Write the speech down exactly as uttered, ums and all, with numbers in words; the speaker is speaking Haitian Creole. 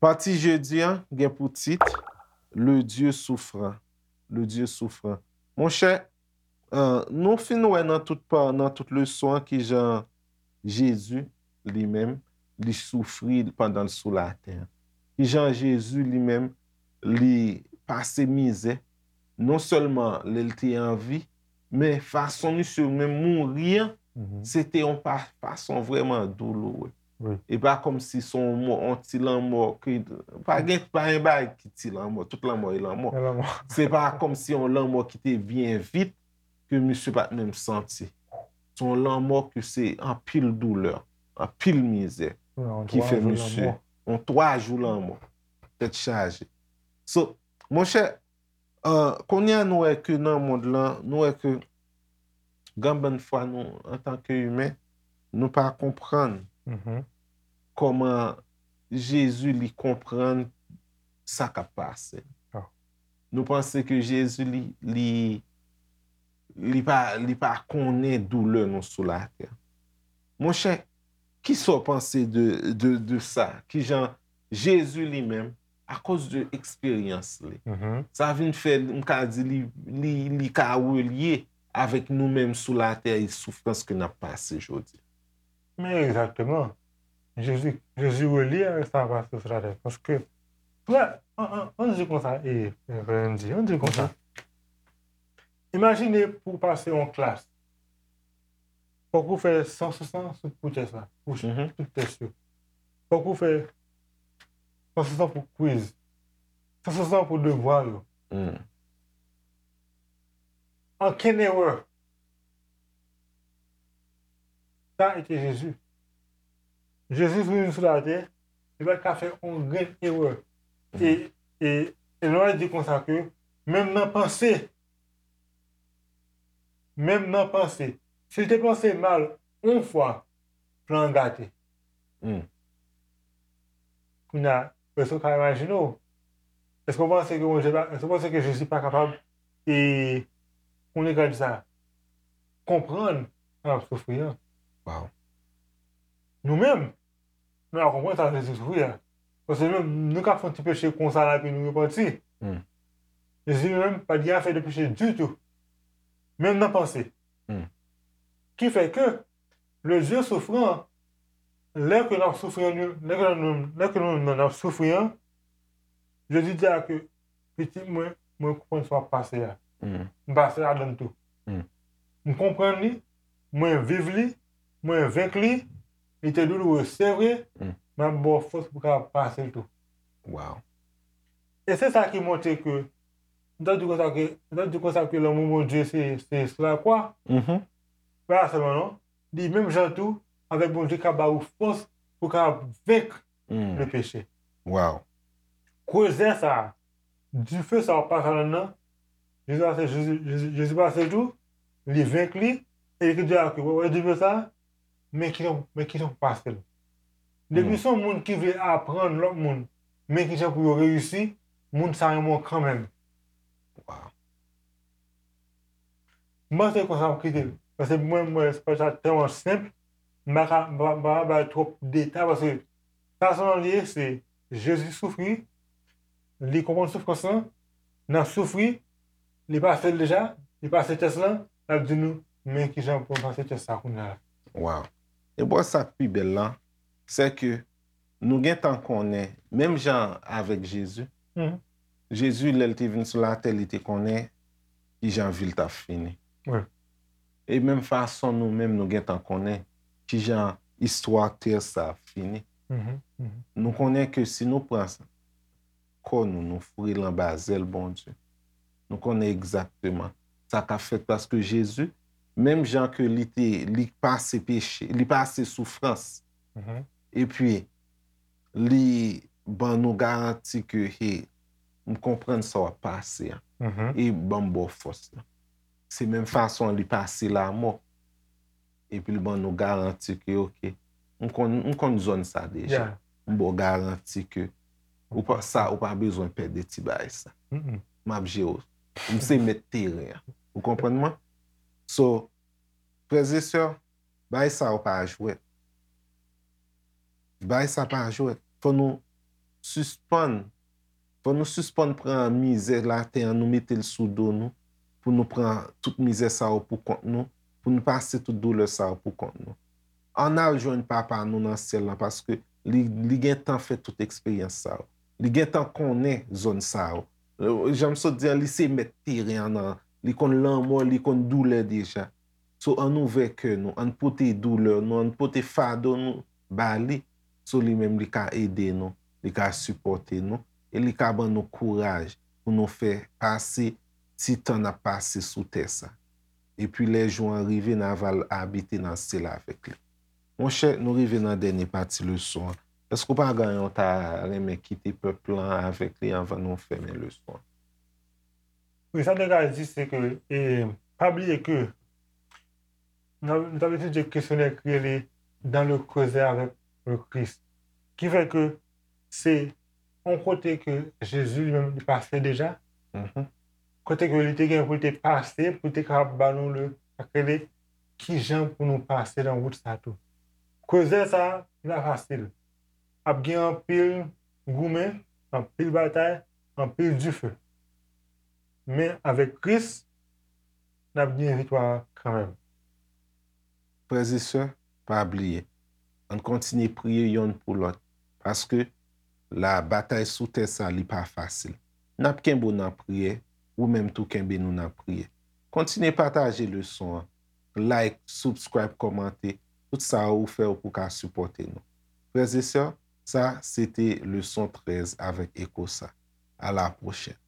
Pati jedi an gen pou tit Le Dieu souffrant. Le Dieu souffrant. Monchè, euh, nou fin wè nan tout pa, nan tout leson an kijan Jezi li menm li soufri pandan l sou latè. Kijan Jezi li menm li pase mizè, non sèlman lè l te an vi, men fason misye menm mouri an, se te yon pa- fason vrèman douloure. E pa kòmsi se yon mò, yon ti lanmò ki, pa gen, pa gen bagay ki ti lanmò, tout lanmò e lanmò. Se pa kòmsi yon lanmò ki te byen vit, ke misye pa t menm santi. Se yon lanmò ke se anpil doulè, anpil mizè ki fè misye. Yon twa jou lanmò. Tèt chaje. So, monchè, euh, kounye a nou wè ke nan mond lan, nou wè ke gen bann fwa nou, antanke imen, nou pa konprann kòman Jezi li konprann sa k ap pase. Nou panse ke Jezi li, li, li pa, li pa konnen doulè nou sou latè. Monchè, kisa w panse de, de, de sa? Kijan Jezi li menm, akoz de eksperyans li, sa vin fè, m ka di, li, li, li ka relye avèk nou menm sou latè e soufrans ke n ap pase jodi. Men egzakteman. Jezi, Jezi relye avèk sa k ap pase sou latè. Paske, frè, ann, ann, ann di konsa, e, e, frè Andy, ann di konsa. Imajine pou w pase yon klas. Fòk ou fè san sou san sou pou tès la, pou tout tès yo. Fòk ou fè san sou san pou kwiz. San sou san pou devwa yo. Ankenn erè. Sa e te Jezi. Jezi vin sou latè, li pa t ka fè yon grenn erè. E, e, e nou di konsa ke, menm nan panse, menm nan panse, si l te panse mal yon fwa, plan an gate. Kounye a, èske w ka imajine w? Èske w panse ke Bondye pa, èske w panse ke Jezi pa kapab, e, konnen ka di sa, konprann sa n ap soufri an? Nou menm, nou pa konprann sa Jezi soufri a. Paske nou menm, nou ka fè yon ti peche konsa la epi nou repanti. Jezi li menm pa t gen afè de peche ditou. Menm nan panse. Ki fè ke le Dieu souffrant, lè ke n ap soufri an, lè ke nou, lè ke nou menm n ap soufri an, Jezi di a ke, pitit mwen, mwen konprann sa w ap pase a. M pase ladann tou. M konprann li, mwen viv li, mwen venk li, li te douloure, se vre, m ap ba w fòs pou w kapab pase l tou. E se sa ki montre ke, m ta di konsa ke, m ta di konsa ke lanmou Bondye se, se sou lakwa. Pa sèlman non, li menm jan tou, avèk Bondye ka ba ou fòs pou w kapab venk le peche. Krezè sa, dife sa w ap pase ladann nan, Jezi pase, Jezi, Jezi, Jezi pase l tou, li venk li, e li di a ke, wè, wè dife sa, men kijan, men kijan pou pase l. Depi se yon moun ki vle aprann lòt moun, men kijan pou yo reyisi, moun sa renmen w kanmenm. M panse konsa m kite l. Paske mwen, mwen, se pa sa tèlman senp. M pa ka, m pa, m pa ka bay twòp detay paske sa sèlman li ye, se Jezi soufri, li konprann soufrans lan, n ap soufri, li pase l deja, li pase tès lan, l ap di nou, men kijan pou n pase tès sa kounye a la. Waw. E bò sa k pi bèl lan, se ke nou gentan konnen, menm jan avèk Jezi, Jezi, lè l te vin sou latè, li te konnen kijan vi l t ap fini. E menm fason nou menm, nou gentan konnen kijan istwa tè sa ap fini. Nou konnen ke si nou pran kò nou, nou foure l anba zèl Bondye, nou konnen egzakteman sa k ap fèt paske Jezi, menm jan ke li te, li pase peche, li pase soufrans, epi li ban nou garanti ke, hey, m konprann sa w ap pase a, e ban m ba w fòs lan. Se menm fason li pase lanmò, epi l ban nou garanti ke, oke, m konn, m konn zòn sa deja. M ba w garanti ke ou pa, sa, ou pa bezwen pè de ti bagay sa. M ap jere w. M se mèt teren an. Ou konprann mwen? So, frè e sè, bagay sa yo pa jwèt. Bagay sa pa jwèt. Fò nou sispann. Fò nou sispann pran mizè latè an, nou mete l sou do nou, pou nou pran tout mizè sa yo pou kont nou, pou nou pase tout doulè sa yo pou kont nou. Ann al jwenn Papa nou nan syèl la, paske li, li gentan fè tout eksperyans sa yo. Li gentan konnen zòn sa yo. Jan m sot di an, li se mèt teren an nan, li konn lanmò, li konn doulè deja. So, ann ouvè kè nou, ann pote doulè nou, ann pote fado nou ba li. So, li menm, li ka ede nou, li ka sipòte nou, e li ka ban nou kouraj pou nou fè pase ti tan n ap pase sou tè sa. Epi lè jou an rive, n a va al abite nan syèl avèk li. Monchè, nou rive nan dènye pati leson an. Èske w pa gen yon ta renmen kite pèp lan avèk li anvan nou fèmen leson an? Wi, sa nou ka di, se ke, e, pa bliye ke nou, nou t ap etidye kesyonè ki rele Dans le creuset avec le Christ. Ki fè ke se yon kote ke Jezi li menm li pase deja. Kote ke li te gen pou li te pase, pou li te kapab ba nou le, sa k rele kijan pou nou pase nan wout sa tou. Creuset sa, li pa fasil. Ap gen anpil goumen, anpil batay, anpil dife. Men avèk Kris, n ap gen viktwa kanmenm. Frè e sè, pa bliye, ann kontinye priye yonn pou lòt, paske la batay sou tè sa li pa fasil. N ap kenbe w nan priyè, ou menm tou kenbe nou nan priyè. Kontinye pataje leson an, like, subscribe, kòmante, tout sa ou fè ou pou ka sipòte nou. Frè e sè, sa se te leson trèz avèk Eko sa. A la pwochèn.